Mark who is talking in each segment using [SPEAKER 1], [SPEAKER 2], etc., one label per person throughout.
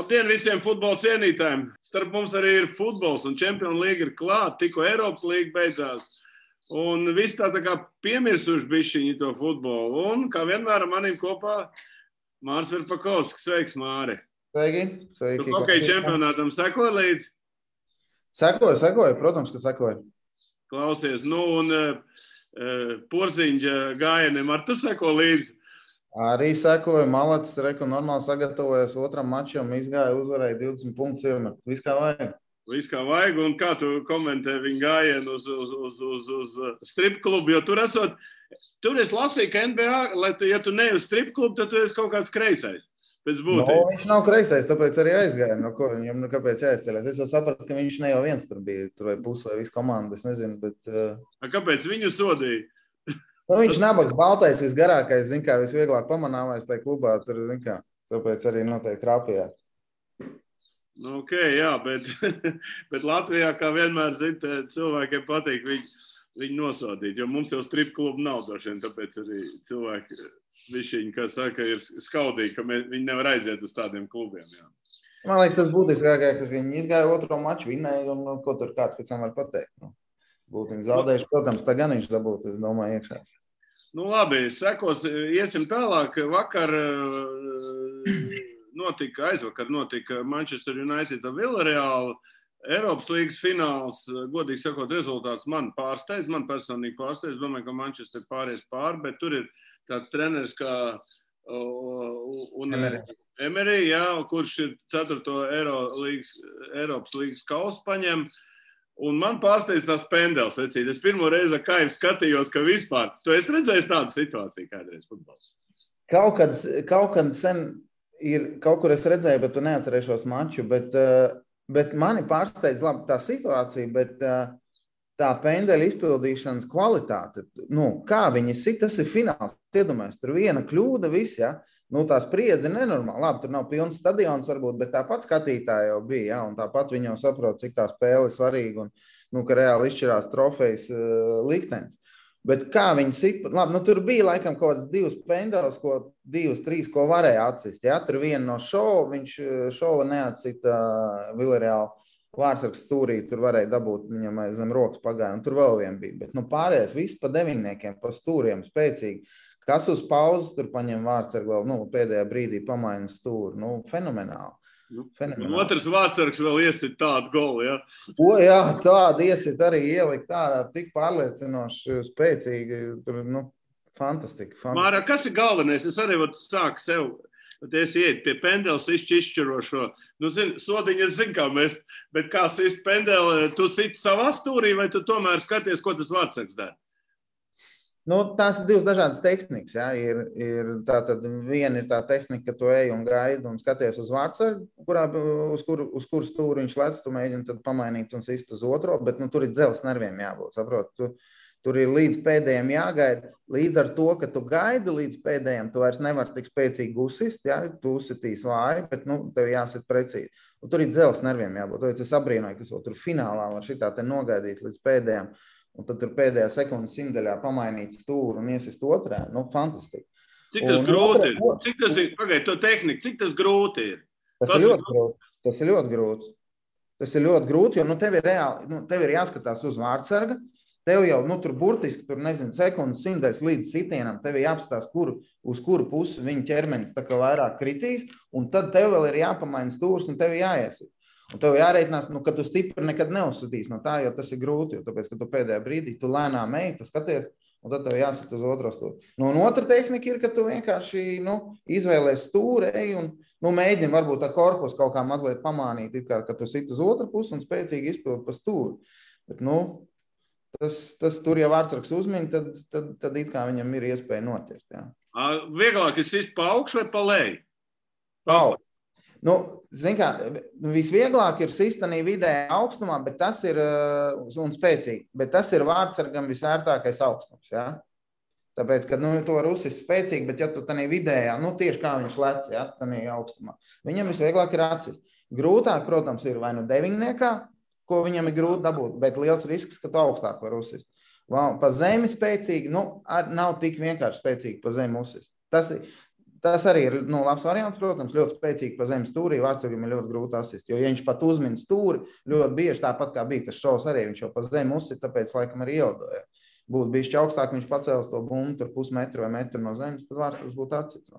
[SPEAKER 1] Labdien visiem futbola cienītājiem. Starp mums arī ir futbols un Čempionu līga ir klāt, tikko Eiropas līga beidzās. Un viss tā kā piemirsuši bišķiņi to futbolu. Un kā vienmēr manim kopā Māris Verpakovskis. Sveiks, Māri.
[SPEAKER 2] Sveiki.
[SPEAKER 1] Tu hokeja čempionātam sekoji līdzi?
[SPEAKER 2] Sekoju, protams, ka sekoju.
[SPEAKER 1] Klausies, un Porziņģa gājieniem ar tu seko līdzi?
[SPEAKER 2] Arī sekoju, Malacis normāli sagatavojas otram mačam, izgāja, uzvarēja 20 punktus iemet. Viss kā vajag.
[SPEAKER 1] Viss kā vajag, un kā tu komentē viņu gājienu uz strip klubu, jo tur es lasīju, ka NBA, ja tu ne uz strip klubu, tad tu esi kaut kāds kreisais. Pēc būtības.
[SPEAKER 2] Viņš nav kreisais, tāpēc arī aizgāja. Viņam kāpēc jāizceļas? Es jau sapratu, ka viņš ne jau viens tur bija, tur vai pus vai visu komandu, es nezinu, bet...
[SPEAKER 1] Kāpēc viņu sodīja?
[SPEAKER 2] Viņš nabaks baltais, visgarākais, visvieglāk pamanāmais tajā klubā, tur, tāpēc arī noteikti trāpījās.
[SPEAKER 1] Ok, jā, bet Latvijā, kā vienmēr, cilvēkiem patīk viņu nosodīt, jo mums jau strip klubu nav došiem, tāpēc arī cilvēki, višķiņi, kā saka, ir skaudīgi, ka viņi nevar aiziet uz tādiem klubiem, jā.
[SPEAKER 2] Man liekas, tas būtiskākais, ka viņi izgāja otro maču, vinnēja, un ko tur kāds pēc tam var pateikt. Būtu viņi zaudējuši, protams, tā gan viņš dabūtu, es domāju, iekšās.
[SPEAKER 1] Labi, sekos, iesim tālāk. Vakar aizvakar notika Manchester United un Villarreal Eiropas līgas fināls. Godīgi sakot, rezultāts man pārsteidz, man personīgi pārsteidz. Domāju, ka Manchester pāries pāri, bet tur ir tāds treneris kā Emery, jā, kurš ir 4. Eiropas līgas kausu paņem. Un man pārsteidz tās pendeles, vecīt. Es pirmo reizi ar Kaivu skatījos, ka vispār. Tu esi redzējis tādu situāciju kādreiz futbolā?
[SPEAKER 2] Kaut kad sen ir, kaut kur es redzēju, bet tu neatcerēšos maču, bet mani pārsteidz labi tā situācija, bet tā pendeļa izpildīšanas kvalitāte, kā viņi sit, tas ir fināls. Iedomājies, tur viena kļūda, viss, ja? Tā spriedze nenormāli. Labi, tur nav pilns stadions varbūt, bet tāpat skatītāji jau bija, ja? Un tāpat viņi jau saprot, cik tā spēle ir svarīga un ka reāli izšķirās trofejas liktenis. Bet kā viņi sit, labi, tur bija laikam kaut kāds 2 pendeles, 2, 3, ko varēja atsist, ja? Tur viena no viņš šova neatsita Villarreal Vārtsargs stūrī, tur varēja dabūt viņam zem rokas pagāja, un tur vēl vien bija. Bet pārējais viss pa deviņniekiem, pa stūriem spēcīgi. Kas uz pauzes tur paņem Vārtsargu vēl, pēdējā brīdī pamaina stūri. Fenomenāli.
[SPEAKER 1] Otrs Vārtsargs vēl iesit tādu golu, ja?
[SPEAKER 2] Jā, tādu iesit arī ielikt tādā tik pārliecinoši, spēcīgi. Tur, fantastika.
[SPEAKER 1] Māra, kas ir galvenais? Es arī sāku sev, es iet pie pendeles izšķirošo. Sodiņi es zinu, kā mest, bet kā sist pendeli, tu sit savā stūrī vai tu tomēr skaties, ko tas Vārtsargs dara?
[SPEAKER 2] Tās ir 2 dažādas tehnikas. Ja? Tātad viena ir tā tehnika, ka tu ej un gaidi un skaties uz Vārtsargu, uz kuru stūri viņš lec, tu mēģini tad pamainīt un sist uz otro, bet tur ir dzelzs nerviem jābūt, saprot. Tur ir līdz pēdējiem jāgaida. Līdz ar to, ka tu gaidi līdz pēdējiem, tu vairs nevar tik spēcīgi uzsist, ja? Tu uzsitīs vāji, bet tev jāsit precīzi. Un tur ir dzelzs nerviem jābūt. Tāpēc es abrīnoju, ka tur finālā var šitā te nogaidīt līdz pēdējiem. Un tad tur pēdējā sekundes simtaļā pamainīt stūru un iesist otrā. Fantastiski.
[SPEAKER 1] Cik tas grūti ir? Cik tas ir? Pagaid, to tehniku. Cik tas grūti ir?
[SPEAKER 2] Tas ir ļoti grūti. Tas ir ļoti grūti, jo tev ir reāli, tev ir jāskatās uz Vārtsarga. Tev jau, tur burtiski, sekundes simtais līdz sitienam, tev ir jāapstās, uz kuru pusi viņa ķermenis tā kā vairāk kritīs, un tad tev vēl ir jāpamaina stūrs un tev ir jāiesit. Un tev jāreitinās, ka tu stipri nekad neuzsitīs no tā, jo tas ir grūti, jo tāpēc, ka tu pēdējā brīdī tu lēnām ej, tu skaties, un tad tev jāsit uz otro stūri. Un otra tehnika ir, ka tu vienkārši, izvēlēs stūri, ej un, mēģini varbūt tā korpus kaut kā mazliet pamānīt, ka tu sit uz otru pusi un spēcīgi izpildi pa stūri. Bet, tas tur, ja Vārtsargs uzmin, tad it kā viņam ir iespēja notiekt, jā.
[SPEAKER 1] Vieglāk ir sist pa augšu vai pa leju?
[SPEAKER 2] Pa augšu. Visvieglāk ir sistanī vidējā augstumā, bet tas ir, un spēcīgi, bet tas ir Vārtsargam visērtākais augstums, ja? Tāpēc, ka, tu var uzsist spēcīgi, bet ja tu tanī vidējā, tieši kā viņš lec, ja, tanī augstumā, viņam visvieglāk ir atsist. Grūtāk, protams, ir vai deviņniekā, ko viņam ir grūti dabūt, bet liels risks, ka tu augstāk var uzsist. Pa zemi spēcīgi, nav tik vienkārši spēcīgi pa zemi uzsist. Tas ir Tas arī ir labs variants, protams, ļoti spēcīgi pa zemes stūrī. Vārtsargam ir ļoti grūti asist, jo, ja viņš pat uzmin stūri, ļoti bieži tāpat kā bija tas šovs arī, viņš jau pa zemi uzsit, tāpēc laikam arī ielidoja. Būtu bijis augstāk, viņš pacēlis to bumbu tur pusmetru vai metru no zemes, tad Vārtsargs būtu atsits.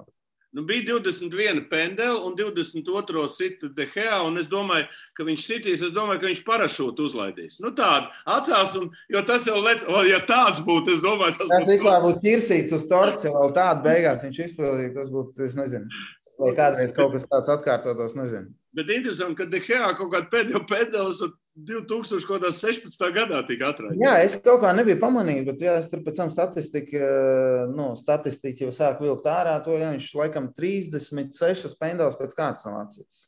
[SPEAKER 1] Nu, bija 21 pendeli un 22 sita De Gea, un es domāju, ka viņš sitīs, es domāju, ka viņš parašūtu uzlaidīs. Nu tādu atcās, jo tas jau ja tāds būtu, es domāju,
[SPEAKER 2] tas vispār būtu ķirsīts uz torts, ja vēl tādu beigās viņš izpildīja, tas būtu, es nezinu, vai kādreiz kaut kas tāds atkārtotos, nezinu.
[SPEAKER 1] Bet interesanti, ka De Gea kaut kādu pēdējo pendelis 2016. gadā tika atraidīts.
[SPEAKER 2] Jā, es kaut kā nebiju pamanījis, bet jā, es tur pēc tam statistiku jau sāku vilkt ārā, to jā, viņš laikam 36 pendelis pēc kārtas nav atsits.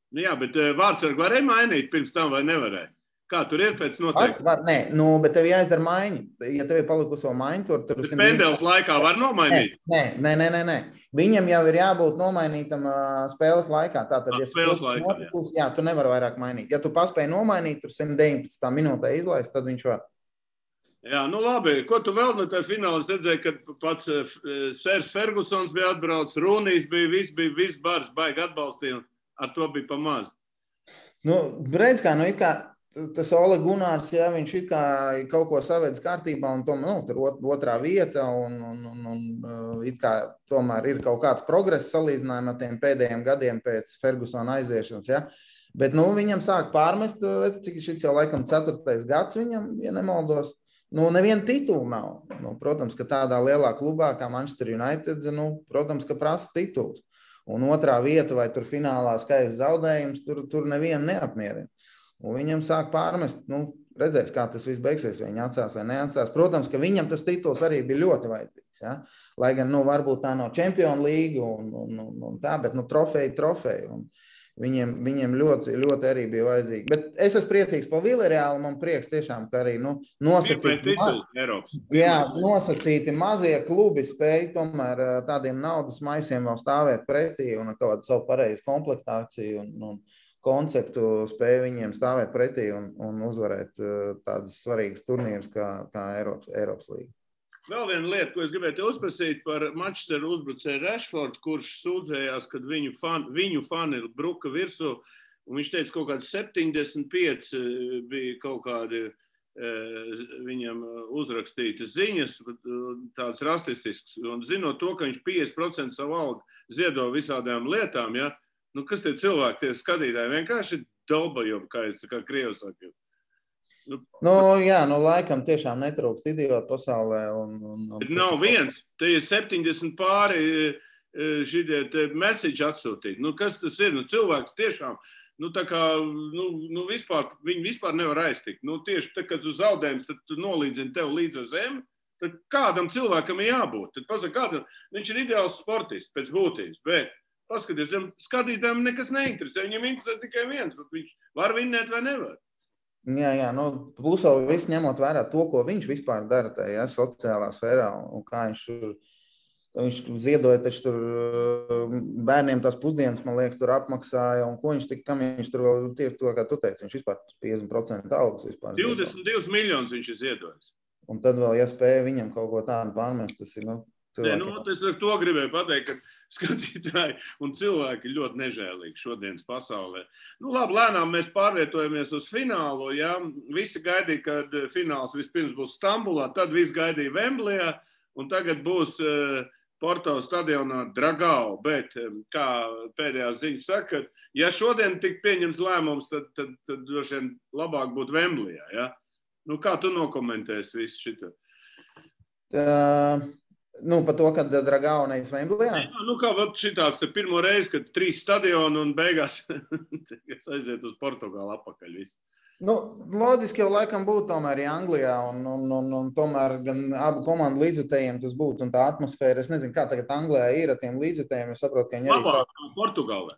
[SPEAKER 1] Nu jā, bet Vārtsargu varēja mainīt pirms tam vai nevarēja? Kā tur ir pēc noteikti?
[SPEAKER 2] Nē, bet tev jāizdara maiņa. Ja tev ir palikusi vēl maiņa, tur
[SPEAKER 1] bet pendelis laikā var nomainīt?
[SPEAKER 2] Nē. Viņam jau ir jābūt nomainītam spēles laikā. Tātad, ja
[SPEAKER 1] spēles laikā,
[SPEAKER 2] jā, tu nevari vairāk mainīt. Ja tu paspēji nomainīt, tur 119 minūtē izlaist, tad viņš var.
[SPEAKER 1] Jā, nu labi. Ko tu vēl no tā fināla redzēji, kad pats Sērs Fergusons bija atbraucis, Rūnijs bija, viss bars baigi atbalstīja, ar to bija pa maz.
[SPEAKER 2] Nu, redz kā, it kā tas Ole Gunārs, jā, viņš it kā kaut ko savedz kārtībā un tur otrā vieta un it kā tomēr ir kaut kāds progress salīdzinājumā ar tiem pēdējiem gadiem pēc Fergusona aiziešanas, jā. Bet, viņam sāk pārmest, cik šis jau laikam 4. gads viņam, ja nemaldos. Neviena titula nav. Protams, ka tādā lielā klubā kā Manchester United, protams, ka prasa tituls. Un otrā vieta vai tur finālā skaists zaudējums, tur nevienu neapmierina. Un viņam sāk pārmest, redzēs, kā tas viss beigsies, vai viņi atsās vai neatsās. Protams, ka viņam tas tituls arī bija ļoti vajadzīgs. Ja? Lai gan, varbūt tā nav Champions League un tā, bet trofeju. Un viņiem ļoti, ļoti arī bija vajadzīgi. Bet es esmu priecīgs par Villarreālu, man prieks tiešām, ka arī nosacīti mazie klubi spēja tomēr tādiem naudas maisiem vēl stāvēt pretī un ar kādu savu pareizu komplektāciju un konceptu spēja viņiem stāvēt pretī un uzvarēt tādas svarīgas turnīras kā Eiropas līga.
[SPEAKER 1] Vēl viena lieta, ko es gribētu uzprasīt par Manchester uzbrucēju Rashfordu, kurš sūdzējās, kad viņu fani bruka virsū, un viņš teica, kaut kādi 75 bija kaut kādi viņam uzrakstītas ziņas, tādas rasistiskas, un zinot to, ka viņš 50% savu algu ziedo visādām lietām, ja, kas tie cilvēki, tie skatītāji, vienkārši dolbajobi, kā krievi saka.
[SPEAKER 2] Laikam tiešām netrūkst idiotu pasaulē.
[SPEAKER 1] Bet nav viens, te ir 70 pāri šitie message atsūtīt. Kas tas ir? Cilvēks tiešām, tā kā, viņi vispār nevar aiztikt. Tieši tad, kad tu zaudējums, tad tu nolīdzini tev līdz ar zemi, tad kādam cilvēkam ir jābūt. Tad pasaka, kādam, viņš ir ideāls sportists pēc būtības, bet paskaties, skatītājiem nekas neinteresē. Viņam interesē tikai viens, bet viņš var vinnēt vai nevar.
[SPEAKER 2] Jā, plus vēl viss ņemot vērā to, ko viņš vispār dara tajā sociālā sfērā un kā viņš ziedoja taču tur bērniem tās pusdienas, man liekas, tur apmaksāja un ko kam viņš tur vēl tieši to, kā tu teici, viņš vispār 50% augs vispār.
[SPEAKER 1] 22 miljonus viņš ir ziedojis.
[SPEAKER 2] Un tad vēl, ja spēja viņam kaut ko tādu pārmest, tas ir,
[SPEAKER 1] es to gribēju pateikt, ka skatītāji un cilvēki ļoti nežēlīgi šodienas pasaulē. Labi, lēnām mēs pārvietojamies uz finālu. Ja? Visi gaidīja, kad fināls vispirms būs Stambulā, tad visi gaidīja Vemblejā, un tagad būs Porto stadionā Dragao. Bet, kā pēdējās ziņas saka, ja šodien tik pieņems lēmums, tad droši vien labāk būtu Vemblejā. Ja? Kā tu nokomentēsi visu šito?
[SPEAKER 2] Par to, kad Dragao nevis Vemblejā?
[SPEAKER 1] Kā šitāds te pirmo reizi, kad 3 stadioni un beigās aiziet uz Portugālu apakaļ visu.
[SPEAKER 2] Loģiski jau laikam būtu tomēr Anglijā un tomēr gan abu komandu līdzjutējiem tas būtu un tā atmosfēra. Es nezinu, kā tagad Anglijā ir ar tiem līdzjutējiem. Es saprotu, ka viņi arī
[SPEAKER 1] labākā Portugālē.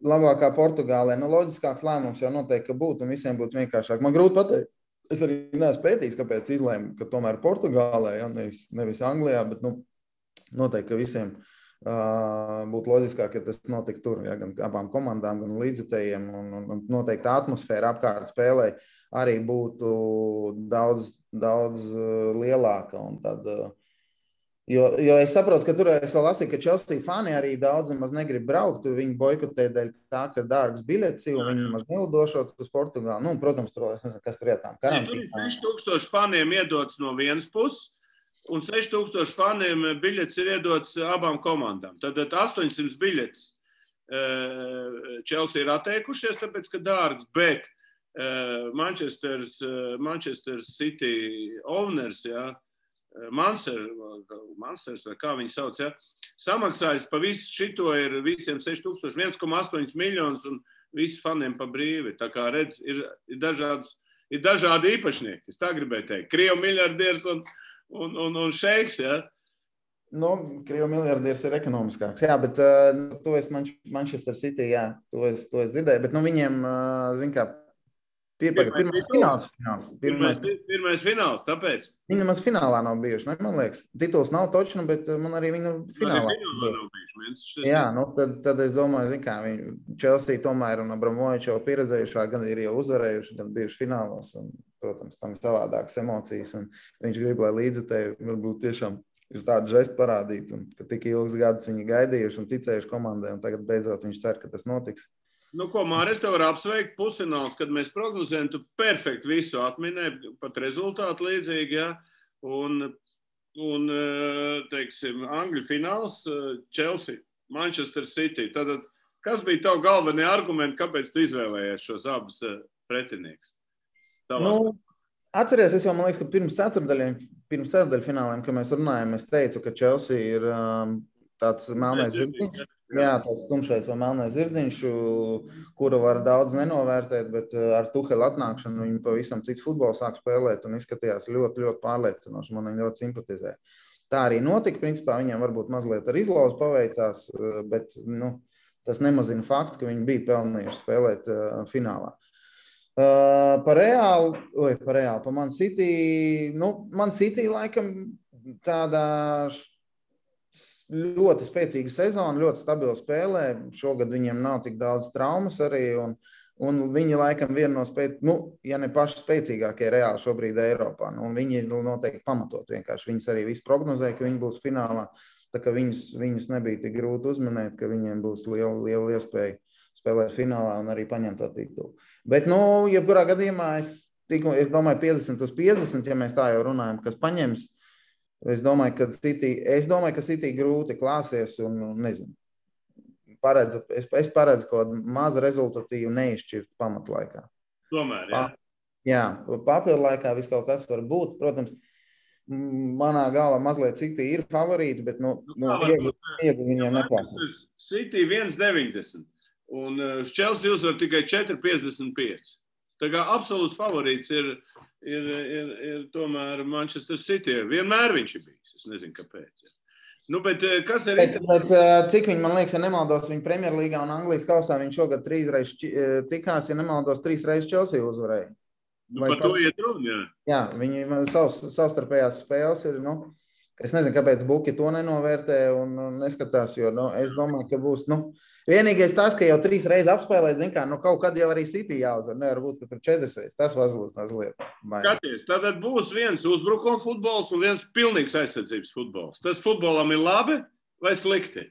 [SPEAKER 2] Labākā Portugālē. Loģiskāks lēmums jau noteikti, ka būtu un visiem būtu vienkāršāk. Man grūti pateikt. Es arī neesmu pētījis, kāpēc izlēmu, ka tomēr Portugālē, nevis Anglijā, bet noteikti, ka visiem būtu loģiskāk, ja tas notika tur, ja, gan abām komandām, gan līdzjutējiem, un noteikti atmosfēra apkārt spēlē arī būtu daudz lielāka, un tad Jo es saprotu, ka tur es vēl lasīju, ka Chelsea fani arī daudz nemaz negrib braukt. Viņi boikotē dēļ tā, ka dārgs biļets, jo viņi nemaz nelidošot uz Portugāli. Nu, protams, tur es nezinu, kas tur ietām
[SPEAKER 1] Tur ir 6000 faniem iedots no vienas puses, un 6000 faniem biļets ir iedots abām komandām. Tad 800 biļetes Chelsea ir atteikušies, tāpēc, ka dārgs, bet Manchester City owners, ja, Mansers, vai kā viņi sauc, ja, samaksājas pa visu šito ir visiem 6000, 1,8 miljonus un visi faniem pa brīvi. Tā kā redz, ir dažādi īpašnieki, es tā gribēju teikt. Krievu miljardieris un šeiks, ja.
[SPEAKER 2] Nu, Krievu miljardieris ir ekonomiskāks, jā, bet to es Manchester City, jā, to es dzirdēju, bet nu viņiem, zin kā, pirmais
[SPEAKER 1] fināls, tāpēc.
[SPEAKER 2] Viņi nemaz finālā nav bijuši, man liekas. Tituls nav točnu, bet man arī viņa finālā
[SPEAKER 1] nav bijuši.
[SPEAKER 2] Jā, nu tad es domāju, zin kā, Chelsea tomēr un Abramovičs jau pieredzējušā, gan ir jau uzvarējuši, gan bijuši finālos, un, protams, tam savādākas emocijas, un viņš grib, lai līdzutēji varbūt tiešām ir tādu žestu parādīt, un ka tik ilgus gadus viņi gaidījuši un ticējuši komandai, un tagad beidzot viņš cer, ka tas notiks.
[SPEAKER 1] Nu, ko, Māri, es tev varu apsveikt pusfināls, kad mēs prognozējam, tu perfekti visu atminēji, pat rezultātu līdzīgi, ja, un teiksim, Angļu fināls, Chelsea, Manchester City. Tad, kas bija tavu galvenie argumenti, kāpēc tu izvēlējies šos abus pretinieks?
[SPEAKER 2] Nu, atceries, es jau, man liekas, ka pirms ceturdaļu fināliem, kad mēs runājam, es teicu, ka Chelsea ir tāds melnais zirdziņš. Jā, tāds tumšais vai melnais zirdziņš, kuru var daudz nenovērtēt, bet ar Tuhela atnākšanu viņi pavisam cits futbols sāk spēlēt un izskatījās ļoti, ļoti pārliecinoši. Man viņi ļoti simpatizē. Tā arī notika, principā viņiem varbūt mazliet ar izlauzu paveicās, bet nu, tas nemazina faktu, ka viņi bija pelnījuši spēlēt finālā. Par Man City, Man City laikam tādā ļoti spēcīga sezona, ļoti stabila spēlē. Šogad viņiem nav tik daudz traumas arī, un viņi laikam viena no ja ne paši spēcīgākie reāli šobrīd Eiropā. Un viņi noteikti pamatot vienkārši. Viņas arī visi prognozēja, ka viņi būs finālā, tā ka viņus nebija tik grūti uzmanēt, ka viņiem būs liela iespēja spēlēt finālā un arī paņemt to titulu. Bet, jebkurā gadījumā es domāju 50/50, ja mēs tā jau runājam, kas paņems. Es domāju, ka City grūti klāsies un nezinu. Es paredzu kaut kādu mazu rezultatīvu neizšķirtu pamatlaikā.
[SPEAKER 1] Tomēr, jā?
[SPEAKER 2] Jā, papildu laikā viss kaut kas var būt. Protams, manā galvā mazliet City ir favorīti, bet iegli viņiem neklāsies.
[SPEAKER 1] City 1,90 un Chelsea uzvar tikai 4,55. Tā kā absolūts favorīts ir tomēr Manchester City. Vienmēr viņš ir bijis. Es nezinu, kāpēc. Ja. Nu, bet kas ir...
[SPEAKER 2] Bet cik viņi, man liekas, ja nemaldos, viņa Premjerlīgā un Anglijas kausā viņš šogad 3 reizes tikās, ja nemaldos, 3 reizes Chelsea uzvarēja.
[SPEAKER 1] Par to iet runa, jā.
[SPEAKER 2] Jā, viņi savstarpējās spēles ir, es nezinu, kāpēc Buki to nenovērtē un neskatās, jo, es domāju, ka būs, vienīgais tas, ka jau 3 reizes apspēlēt, zin kā, kaut kad jau arī City jāuzvar, nevar būt, ka tur 4 reizes, tas mazliet.
[SPEAKER 1] Skaties, tad būs viens uzbrukuma futbols un viens pilnīgs aizsardzības futbols. Tas futbolam ir labi vai slikti?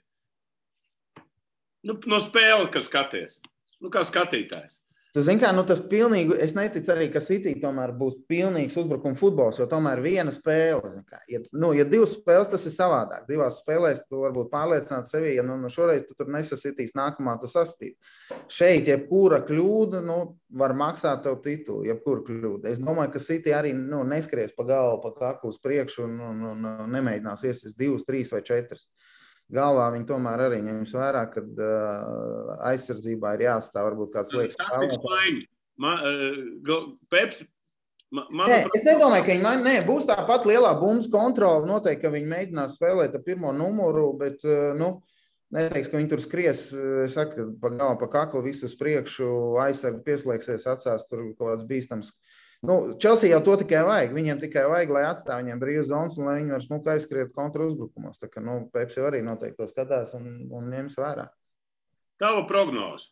[SPEAKER 1] No spēle, kas skaties. Kā skatītājs.
[SPEAKER 2] Tu zini kā, tas pilnīgi, es neticu arī, ka City tomēr būs pilnīgs uzbrukuma futbols, jo tomēr viena spēle. Ja 2 spēles, tas ir savādāk. 2 spēlēs tu varbūt pārliecināt sevi, ja šoreiz tu tur nesasitīs, nākamā tu sastīt. Šeit jebkura kļūda, var maksāt tev titulu, jebkura kļūda. Es domāju, ka City arī neskries pa galvu, pa kaklu uz priekšu un nemēģinās iesist 2, 3 vai 4. Galvā viņi tomēr arī ņems vērā, kad aizsardzībā ir jāatstāv varbūt kāds liekas spēlētājs.
[SPEAKER 1] Peps,
[SPEAKER 2] es nedomāju, ka viņi būs tāpat lielā bumbas kontrola. Noteikti, ka viņi mēģinās spēlēt ar pirmo numuru, bet neteiks, ka viņi tur skries, es saku, pa galvu, pa kaklu visu uz priekšu, aizsargi pieslēgsies, atstās tur kaut kāds bīstams. Chelsea jau to tikai vajag. Viņiem tikai vajag, lai atstāv viņiem brīvas zonas un lai viņi var smuki aizskriet kontra uzbrukumos. Tā kā, Peps jau arī noteikti to skatās un ņems vērā.
[SPEAKER 1] Tava prognoze?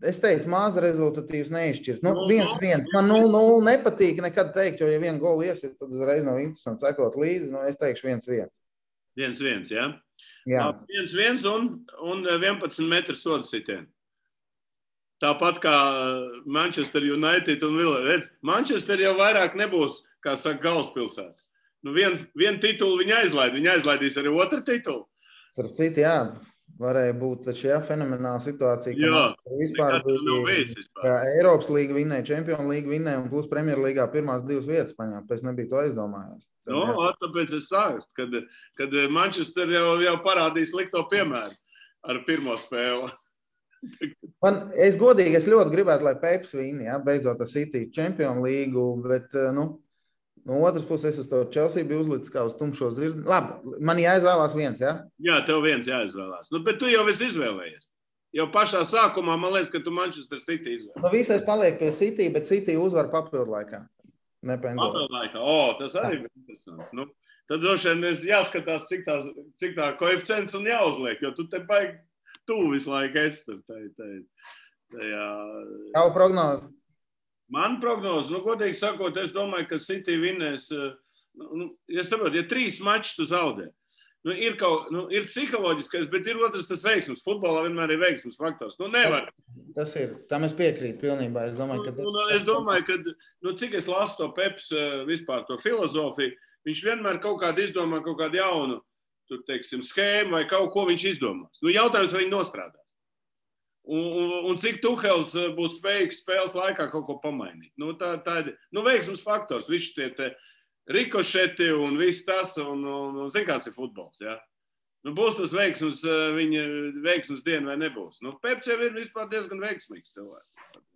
[SPEAKER 2] es teicu, maza rezultatīvs neizšķirs. 1-1. Man 0-0 nepatīk nekad teikt, jo, ja vienu golu iesit, tad uzreiz nav interesanti sekot līdzi. Es teikšu 1-1.
[SPEAKER 1] 1-1, ja?
[SPEAKER 2] Jā.
[SPEAKER 1] 1-1 un 11 metru sodu sitienu. Tāpat kā Manchester United un Villa. Redz, Manchester jau vairāk nebūs, kā saka, galvaspilsēta. Vienu titulu viņi aizlaid. Viņi aizlaidīs arī otru titulu.
[SPEAKER 2] Starp citu, jā, varēja būt taču, fenomenāla situācija, ka vispār bija Eiropas līga vinnēja, Čempionu līga vinnēja un plus Premjerlīgā pirmās 2 vietas paņēma. Pēc nebija to aizdomājies.
[SPEAKER 1] Tāpēc es sāku, kad Manchester jau parādīs likto piemēru ar pirmo spēli.
[SPEAKER 2] Es ļoti gribētu, lai Peps vinna, beidzot ar City Čempionu līgu, bet, no otras puses, es to Chelsea biju uzlicis kā uz tumšo zirzni. Labi, man jāizvēlās viens, ja?
[SPEAKER 1] Jā, tev viens jāizvēlās. Bet tu jau esi izvēlējies. Jau pašā sākumā, man liekas, ka tu Manchester City izvēlējies.
[SPEAKER 2] Visais paliek pie City, bet City uzvar papildu laikā.
[SPEAKER 1] Papildu laikā? Tas arī ir interesants. Tad droši vien jāskatās, cik tā koeficients un jāuzliek, jo tu te baigi tuvu visu laiku esi.
[SPEAKER 2] Tavu prognozi?
[SPEAKER 1] Man prognoze, godīgi sakot, es domāju, ka City vinnēs, ja 3 mačus tu zaudē. Ir psiholoģiskais, bet ir otrs tas veiksmes. Futbolā vienmēr ir veiksmes faktors. Nevar.
[SPEAKER 2] Tas ir. Tam es piekrītu pilnībā. Es domāju,
[SPEAKER 1] ka cik es lasu to Peps vispār to filozofiju, viņš vienmēr kaut kādu izdomā, kaut kādu jaunu, schēmu vai kaut ko viņš izdomās. Jautājums, vai viņi nostrādās. Un cik Tuhels būs spējīgs spēles laikā kaut ko pamainīt. Tā ir veiksmes faktors. Visi tie rikošeti un viss tas, un zin, kāds ir futbols, ja? Būs tas veiksmes, viņa veiksmes diena vai nebūs. Peps jau ir vispār diezgan veiksmīgs cilvēks.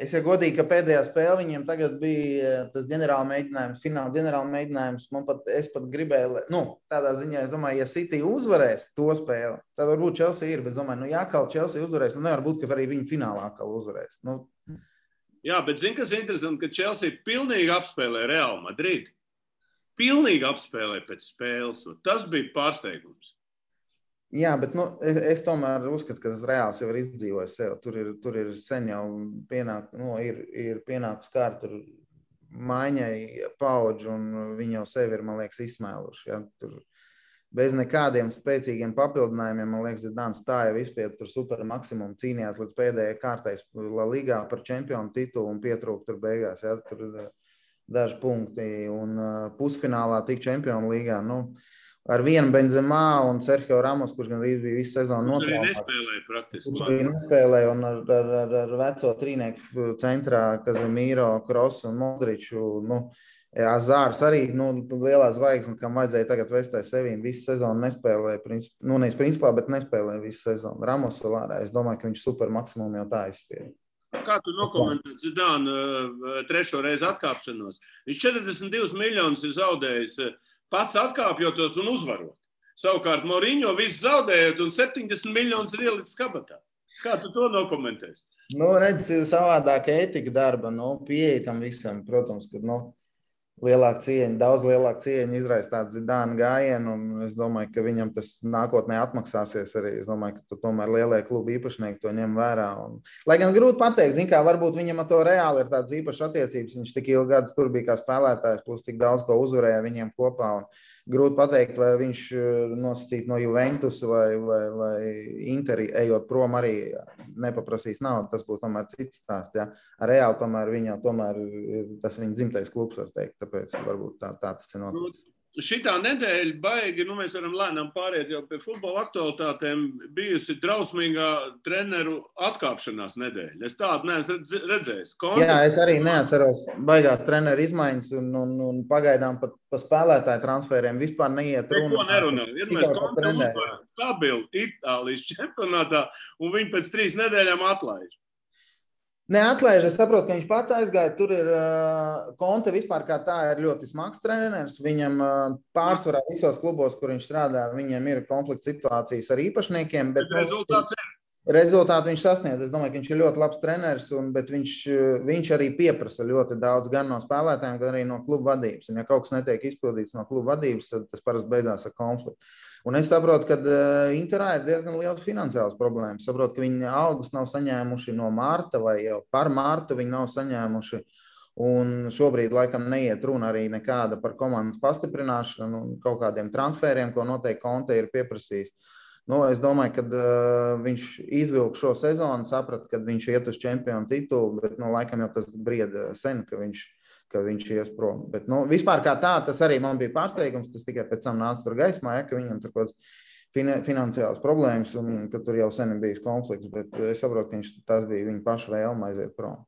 [SPEAKER 2] Es jau godīgi, ka pēdējā spēle viņiem tagad bija tas ģenerāla mēģinājums, fināla ģenerāla mēģinājums. Es pat gribēju, tādā ziņā, es domāju, ja City uzvarēs to spēli, tad varbūt Chelsea ir, bet domāju, ja kaut Chelsea uzvarēs, nevar būt, ka arī viņi finālā kaut uzvarēs.
[SPEAKER 1] Jā, bet zini, kas ir interesanti, ka Chelsea pilnīgi apspēlē Real Madrid. Pilnīgi apspēlē pēc spēles. Tas bija pārsteigums.
[SPEAKER 2] Jā, bet es tomēr uzskatu, ka tas Reāls jau ir izdzīvojis sev. Tur ir sen jau ir pienākus kārt maiņai paudži, un viņi jau sevi ir, man liekas, izsmēluši. Ja? Tur bez nekādiem spēcīgiem papildinājumiem, man liekas, Zidāns stāja vispār tur super maksimumu, cīnījās līdz pēdējai kārtais La Ligā par čempionu titulu un pietrūka tur beigās. Ja? Tur daži punkti un pusfinālā tik čempionu līgā. Ar vienu Benzemā un Sergio Ramos, kurš gan arī bija visu sezonu notraumāts. Kurš arī nespēlēja un ar veco trīnieku centrā Kazemīro, Krosu un Modriču. Azārs arī lielā zvaigzne, kam vajadzēja tagad vestai sevīm. Visu sezonu nespēlēja, nevis principā, bet nespēlēja visu sezonu. Ramos vēl ārā. Es domāju, ka viņš super maksimumu jau tā izspēja.
[SPEAKER 1] Kā tu nokomentē Zidānu 3. reizi atkāpšanos? Viņš 42 miljonus ir zaudējis pats atkāpjotos un uzvarot. Savukārt Mourinho visu zaudējot un 70 miljonus ir ielicis kabatā. Kā tu to nokomentēsi?
[SPEAKER 2] Redz, savādāk ētika darba, pieeja tam visam, protams, ka, daudz lielāka cieņa izraisa tādu Zidānu gājienu, un es domāju, ka viņam tas nākotnē atmaksāsies arī. Es domāju, ka tomēr lielie klubu īpašnieki to ņem vērā. Lai gan grūti pateikt, kā varbūt viņam ar to Reāli ir tādas īpašas attiecības, viņš tik ilgi gadus tur bija kā spēlētājs, plus tik daudz ko uzvarēja viņiem kopā. Grūti pateikt, vai viņš nosacīt no Juventus vai Interi, ejot prom arī nepaprasīs naudu. Tas būs tomēr cits stāsts. Ja? Ar Reāli tomēr tas viņa dzimtais klubs, var teikt. Tāpēc varbūt tā tas ir noticis.
[SPEAKER 1] Šitā nedēļa baigi, mēs varam lēnām pāriet jau pie futbola aktualitātēm, bijusi drausmīgā treneru atkāpšanās nedēļa. Es tādu neesmu redzējis.
[SPEAKER 2] Jā, es arī neatceros baigās treneru izmaiņas un pagaidām pat pa spēlētāju transferiem vispār neiet runa.
[SPEAKER 1] Neko nerunā. Vienmēr Konte uzvar stabilu Itālijas čempionātā un viņi pēc 3 nedēļām atlaiž.
[SPEAKER 2] Neatlaiž, es saprotu, ka viņš pats aizgāja. Tur ir Konte vispār kā tā ir ļoti smags treneris. Viņam pārsvarā visos klubos, kur viņš strādā, viņam ir konflikts situācijas ar īpašniekiem. Bet rezultātu viņš sasniedz. Es domāju, ka viņš ir ļoti labs treneris, bet viņš arī pieprasa ļoti daudz gan no spēlētājiem, gan arī no klubu vadības. Un ja kaut kas netiek izpildīts no klubu vadības, tad tas parasti beidzās ar konfliktu. Un es saprotu, ka Interā ir diezgan liels finansiāls problēmas. Saprotu, ka viņi algas nav saņēmuši no mārta vai jau par mārtu viņi nav saņēmuši. Un šobrīd laikam neiet runa arī nekāda par komandas pastiprināšanu un kaut kādiem transferiem, ko noteikti Conte ir pieprasījis. Nu, es domāju, ka viņš izvilka šo sezonu, saprata, ka viņš iet uz čempionu titulu, bet laikam jau tas brieda sen, ka viņš ies prom. Bet vispār kā tā, tas arī man bija pārsteigums, tas tikai pēc tam nāca tur gaismā, ka viņam tur kaut kāds finansiāls problēmas un ka tur jau sen ir bijis konflikts, bet es saprotu, ka tas bija viņa paša vēlme aiziet prom.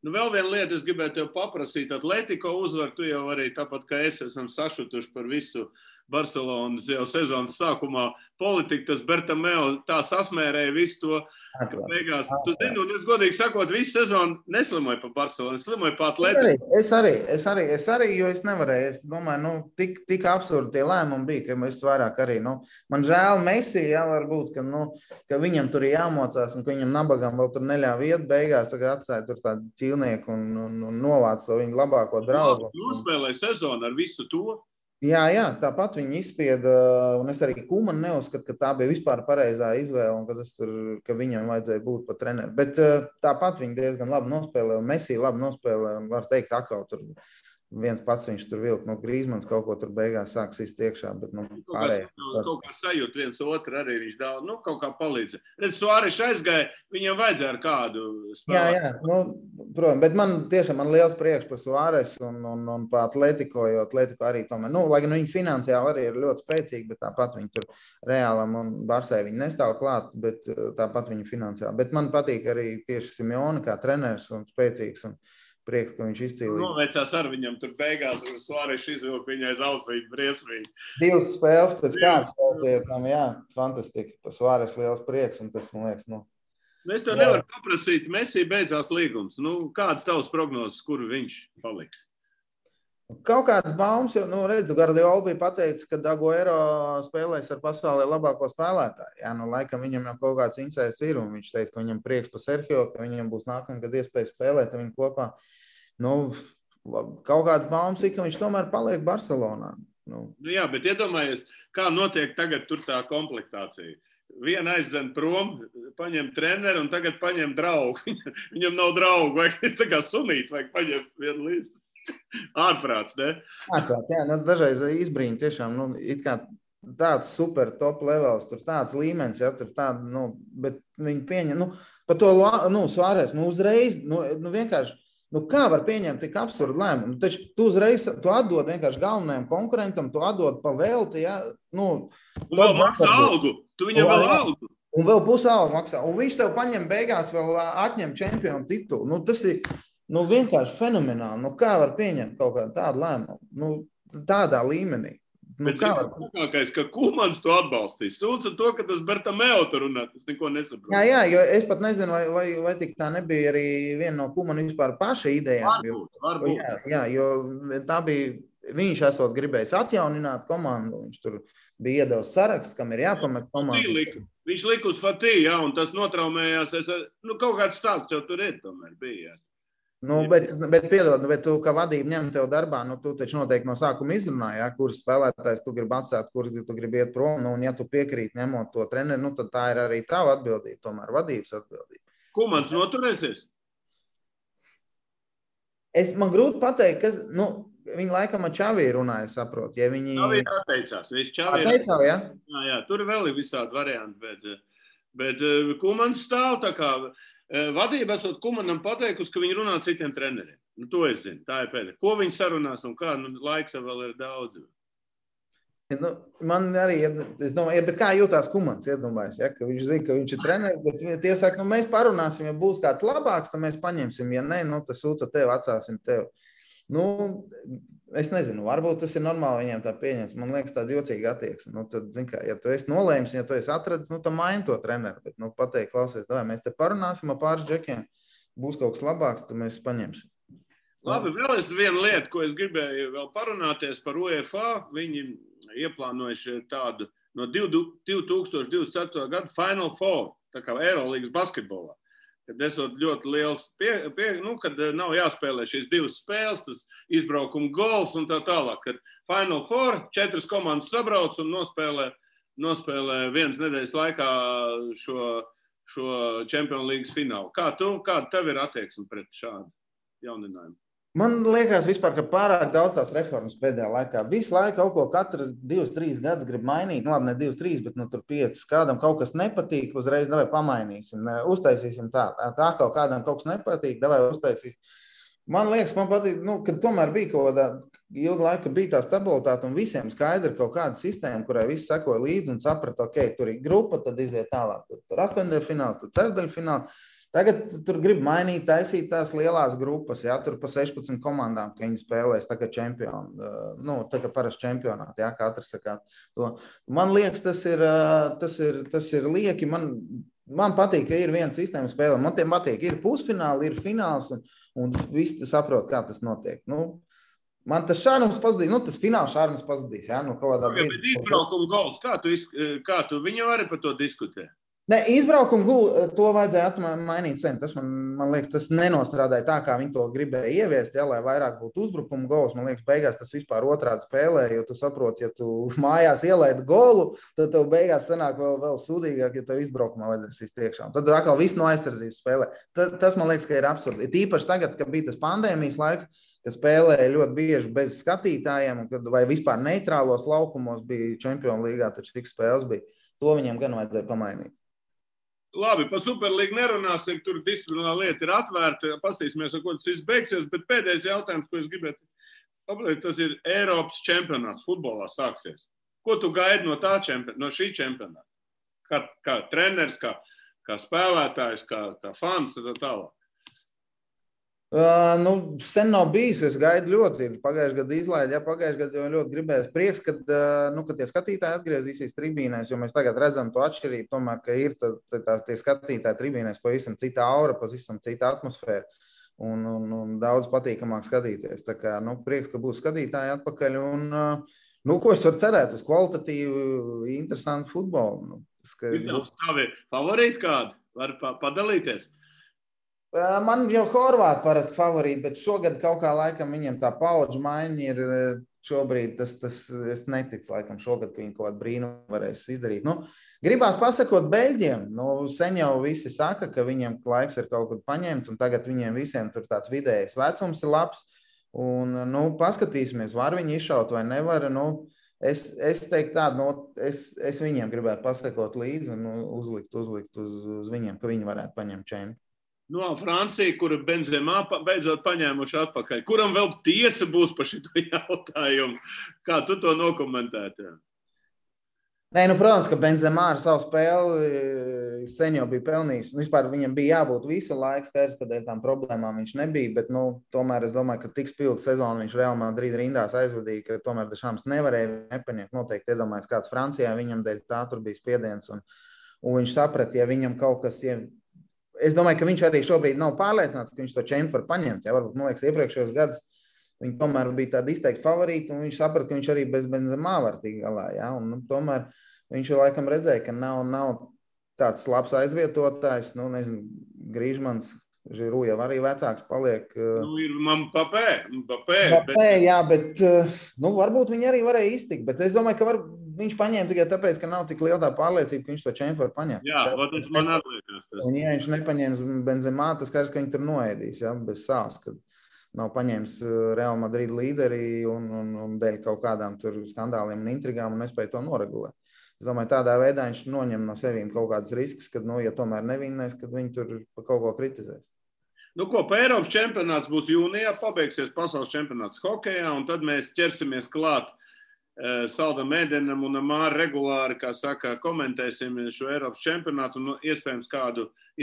[SPEAKER 1] Nu, vēl viena lieta, es gribēju tev paprasīt. Atletico uzvar, tu jau arī tāpat kā es esam sašutuši par visu Barcelonas jau sezonas sākumā politiku. Tas Bertomeu tā sasmērēja visu to, ka beigās. Tu zini, un es godīgi sakot, visu sezonu neslimoju pa Barcelonu, es slimoju pa Atletico.
[SPEAKER 2] Es arī, jo es nevarēju. Es domāju, tik absurdi tie lēmumi bija, ka es vairāk arī, man žēl Messi, jā, varbūt, ka viņam tur ir jāmocās un ka viņam nabagam vēl tur neļāva iet beigās, tagad atstāja tur tādu ķīlnieku un novāc to viņu labāko draugu.
[SPEAKER 1] Nospēlēja sezonu ar visu to.
[SPEAKER 2] Jā, tāpat viņi izspieda, un es arī Kumanu neuzskatu, ka tā bija vispār pareizā izvēle, un ka viņam vajadzēja būt pa treneru. Bet tāpat viņi diezgan labi nospēlē, un Messi labi nospēlē, un var teikt, atkal tur viens pats viņš tur vilk, Grīzmans kaut ko tur beigās sāks iekšā, bet pārējā.
[SPEAKER 1] Kaut kā sajūt viens otru arī viņš daudz, kaut kā palīdz. Redz, Suāres aizgāja, viņam vajadzēja ar kādu spēlēt.
[SPEAKER 2] Jā, protams, bet man liels prieks par Suāres un par Atletico, jo Atletico arī tomēr, lai gan viņi finansiāli arī ir ļoti spēcīgi, bet tāpat viņi tur Reālam un Barsai viņi nestāv klāt, bet tāpat viņi finansiāli. Bet man patīk arī tieši Simeone kā treneris un spēcīgs un prieks, ka viņš izcīlīja.
[SPEAKER 1] Noveicās ar viņam tur beigās, un Suāres izvilka viņai zausīt briesmīgi.
[SPEAKER 2] 2 spēles pēc kārtas vēl pie tam, jā, fantastiski. Pa Suāres liels prieks, un tas, man liekas,
[SPEAKER 1] Es tev nevaru paprasīt, Messi beidzās līgums. Kādas tavas prognozes, kur viņš paliks?
[SPEAKER 2] Kaut kāds baumas, jo, redzu, Guardiola bija pateicis, ka Agüero spēlēs ar pasaulē labāko spēlētāju. Jā, laikam viņam jau kaut kāds insights ir, un viņš teica, ka viņam prieks par Sergio, ka viņam būs nākamgad iespēja spēlēt ar viņu kopā. Kaut kāds baumas ir, ka viņš tomēr paliek Barcelonā.
[SPEAKER 1] Jā, bet iedomājies, kā notiek tagad tur tā komplektācija. Viena aizdzen prom, paņem treneru un tagad paņem draugu. Viņam nav draugu, vai tā kā sunīt, vai paņem vienu līdzi. Ārprāts, ne?
[SPEAKER 2] Ārprāts, jā, dažreiz izbrīņi tiešām, it kā tāds super top levels, tur tāds līmenis, jā, tur tāda, bet viņi pieņem, par to, Suāres, uzreiz, vienkārši, kā var pieņemt tik absurdu lēmumu? Taču tu uzreiz, tu atdod vienkārši galvenajam konkurentam, tu atdod pa velti, jā,
[SPEAKER 1] Un vēl maksā algu, tu viņam vēl algu.
[SPEAKER 2] Un vēl pusi algu maksā, un viņš tev paņem beigās vēl atņem čempionu titulu, tas ir, vienkārši fenomenāli. Kā var pieņemt kaut kādu tādu lēmumu? Tādā līmenī.
[SPEAKER 1] Bet tas ka Kumans to atbalstīs. Sūdz ar to, ka tas Bertomeu tur runā. Es neko nesaprotu.
[SPEAKER 2] Jā, jo es pat nezinu, vai tik tā nebija arī viena no Kumana vispār paša idejām.
[SPEAKER 1] Varbūt.
[SPEAKER 2] Jā, jo tā bija, viņš esot gribējis atjaunināt komandu. Viņš tur bija iedevis sarakstu, kam ir jāpamet komandu.
[SPEAKER 1] Viņš lika uz Fatī, jā, un tas notraumējās. Kaut kāds stāsts jau tur ir tomēr bija.
[SPEAKER 2] Bet piedod, bet tu, kā vadība ņem tev darbā, tu taču noteikti no sākuma izrunāji, kurus spēlētājs tu gribi atstāt, kurus tu gribi iet prom, un ja tu piekrīt ņemot to treneri, tad tā ir arī tava atbildība, tomēr vadības atbildība.
[SPEAKER 1] Kumans noturēsies?
[SPEAKER 2] Man grūti pateikt, ka, viņi laikam ar Čavī runāja, saprot, ja viņi...
[SPEAKER 1] Čavī atteicās, Jā, tur vēl ir visādi varianti, bet Kumans stāv tā kā... Vadība esot Kumanam pateikusi, ka viņi runā citiem treneriem. To es zinu, tā ir pēdējā. Ko viņi sarunās un kā, laiks vēl ir daudz.
[SPEAKER 2] Man arī, es domāju, bet kā jūtās Kumans, iedomājas, ka viņš zina, ka viņš ir treneris, bet tie saka, mēs parunāsim, ja būs kāds labāks, tad mēs paņemsim, ja ne, tas sūca tev, atstāsim tev. Es nezinu, varbūt tas ir normāli viņiem tā pieņems. Man liekas, tāda jocīga attieksme. Tad, ja tu esi nolēmis, ja tu esi atradis, tad maini to treneru. Bet, pateikt, klausies, mēs te parunāsim ar pāris džekiem, būs kaut kas labāks, tad mēs paņemsim.
[SPEAKER 1] Labi, vēl es vienu lietu, ko es gribēju vēl parunāties par UEFA. Viņi ieplānojuši tādu no 2024. gada Final Four, tā kā Eirolīgas basketbolā. Kad esot ļoti liels, kad nav jāspēlē šīs 2 spēles, tas izbraukuma gols un tā tālāk. Kad Final Four 4 komandas sabrauc un nospēlē nospēlē vienas nedēļas laikā šo Champions League finālu. Kāda tev ir attieksme pret šādu jauninājumu?
[SPEAKER 2] Man liekas, vispār, ka pārāk daudz tās reformas pēdējā laikā. Visu laiku kaut ko katru 2-3 gadus grib mainīt. Labi, ne 2-3, bet tur 5. Kādam kaut kas nepatīk, uzreiz davai pamainīsim. Uztaisīsim tā kaut kādam kaut kas nepatīk, davai uztaisīsim. Man liekas, man patīk, ka tomēr bija kaut kāda ilga laika, bija tā stabilitāte un visiem skaidri kaut kāda sistēma, kurai visi sekoja līdzi un saprata, ok, tur ir grupa, tad iziet tālāk. Tur 8. fināls, tad ceturdaļa fināls. Tagad tur grib mainīt, taisīt tās lielās grupas, jā, tur pa 16 komandām, ka viņi spēlēs tā kā čempioni, tā kā parasti čempionāti, jā, katrs sakā to. Man liekas, tas ir lieki, man patīk, ka ir viena sistēma spēle, man tiem patīk, ir pusfināli, ir fināls, un visi saprot, kā tas notiek. Man tas šārums pazudīs, tas fināls šārums pazudīs, jā, kaut kādā
[SPEAKER 1] brīdī. Bet izbraukuma gols, kā tu viņam arī par to diskutē?
[SPEAKER 2] Ne, izbraukumu gulu to vajadzēja mainīt sen. Tas man liekas, tas nenostrādāja tā, kā viņi to gribēja ieviest, ja, lai vairāk būtu uzbrukuma gols. Man liekas, beigās tas vispār otrādi spēlē, jo tu saproti, ja tu mājās ielaidi golu, tad tev beigās sanāk vēl sūdīgāk, ja tev izbraukumā vajadzēs iztiekšām. Tad atkal viss no aizsardzības spēlē. Tas man liekas, ka ir absurdi. Tīpaši tagad, kad bija tas pandēmijas laiks, ka spēlēja ļoti bieži bez skatītājiem, vai vispār neitrālos laukumos bija Champions Līgā, taču tik spēles bija. To viņiem gan vajadzēja pamainīt.
[SPEAKER 1] Labi, par Superlīgu nerunāsim, tur disciplinārā lieta ir atvērta, pastīsimies, ar ko tas viss beigsies, bet pēdējais jautājums, ko es gribētu pabeigt, tas ir Eiropas čempionāts futbolā sāksies. Ko tu gaidi no šī čempionāta? Kā treneris, kā spēlētājs, kā fans, tā tālāk?
[SPEAKER 2] Sen nav bijis, es gaidu ļoti. Pagājušajā gadā izlaidi, pagājušajā gadā jau ļoti gribējās prieks, kad tie skatītāji atgriezīsies tribīnēs, jo mēs tagad redzam to atšķirību, tomēr, ka ir tie skatītāji tribīnēs pavisam cita aura, pavisam cita atmosfēra un daudz patīkamāk skatīties. Tā kā, prieks, ka būs skatītāji atpakaļ un, ko es varu cerēt uz kvalitatīvu, interesantu futbolu.
[SPEAKER 1] Ir tavi favorīti kādi? Var padalīties?
[SPEAKER 2] Man jau Horvāti parasti favorīti, bet šogad kaut kā laikam viņiem tā paudžu maiņa ir šobrīd, es neticu laikam šogad, ka viņi kaut kādu brīnumu varēs izdarīt. Gribās pasakot Beļģiem, sen jau visi saka, ka viņiem laiks ir kaut kur paņemt, un tagad viņiem visiem tur tāds vidējais vecums ir labs, un, paskatīsimies, var viņi izšaut vai nevar, es teiktu tādu, es viņiem gribētu pasakot līdzi un uzlikt uz viņiem, ka viņi varētu paņemt čempi.
[SPEAKER 1] Francija, kura Benzemā beidzot paņēmuši atpakaļ. Kuram vēl tiesa būs par šito jautājumu? Kā tu to nokomentētu?
[SPEAKER 2] Nē, protams, ka Benzemā ar savu spēli sen jau bija pelnījis. Vispār viņam bija jābūt visu laiku skaidrs, ka dēļ tām problēmām viņš nebija, bet tomēr es domāju, ka tik spilgu sezonu viņš Real Madrid rindās aizvadīja, ka tomēr Dešams nevarēja nepaņemt. Noteikti iedomājas kāds Francijā, viņam dēļ tā tur bija spiediens un viņš saprata, ja viņam kaut kas... Es domāju, ka viņš arī šobrīd nav pārliecināts, ka viņš to čempu var paņemt. Ja? Varbūt, man liekas, iepriekšējos gadus viņi tomēr bija tādi izteikti favorīti, un viņš saprata, ka viņš arī bez Benzemā var tikt galā. Ja? Un, tomēr viņš jau laikam redzēja, ka nav tāds labs aizvietotājs. Griezmanns, Žiru jau arī vecāks paliek.
[SPEAKER 1] Ir Mbappé,
[SPEAKER 2] jā, bet varbūt viņi arī varēja iztikt. Bet es domāju, ka viņš paņēma tikai tāpēc, ka nav tik liela tā pārliecība, ka viņš to čempu var paņemt.
[SPEAKER 1] Jā, tas man atliekas.
[SPEAKER 2] Un ja viņš nepaņēmis Benzemā, tas skaidrs, ka viņi tur noēdīs, ja, bez sāls, kad nav paņēmis Real Madrid līderi un dēļ kaut kādām tur skandāliem un intrigām un nespēja to noregulēt. Es domāju, tādā veidā viņš noņem no sevīm kaut kādas risks, kad, ja tomēr nevinnēs, kad viņi tur pa kaut ko kritizēs.
[SPEAKER 1] Pa Eiropas čempionāts būs jūnijā, pabeigsies pasaules čempionāts hokejā, un tad mēs ķersimies klāt Saldam Ēdenam un Māri regulāri, kā saka, komentēsim šo Eiropas čempionātu un iespējams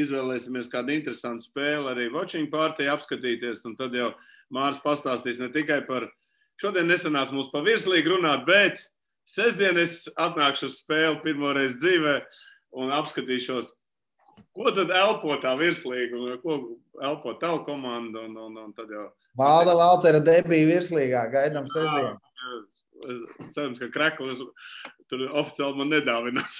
[SPEAKER 1] izvēlēsimies kādu interesantu spēli arī watching party apskatīties, un tad jau Māris pastāstīs ne tikai par, šodien nesanāca mums pa virslīgu runāt, bet sestdien es atnākšu uz spēli pirmoreiz dzīvē un apskatīšos, ko tad elpo tā virslīga un ko elpo tavu komandu un tad jau...
[SPEAKER 2] Valtera debija virslīgā, gaidām sestdien.
[SPEAKER 1] Cerams, ka Kreklis tur oficiāli man nedāvinās.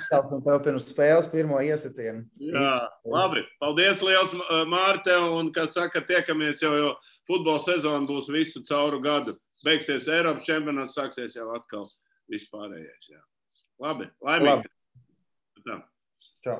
[SPEAKER 2] Tāds un tev pirms spēles pirmo iesitienu.
[SPEAKER 1] Jā, labi. Paldies liels, Māri, tev, un, kā saka, tiekamies jo futbola sezona būs visu cauru gadu. Beigsies Eiropas čempionāts, sāksies jau atkal vispārējais, jā. Labi, laimīgi.
[SPEAKER 2] Labi. Čau.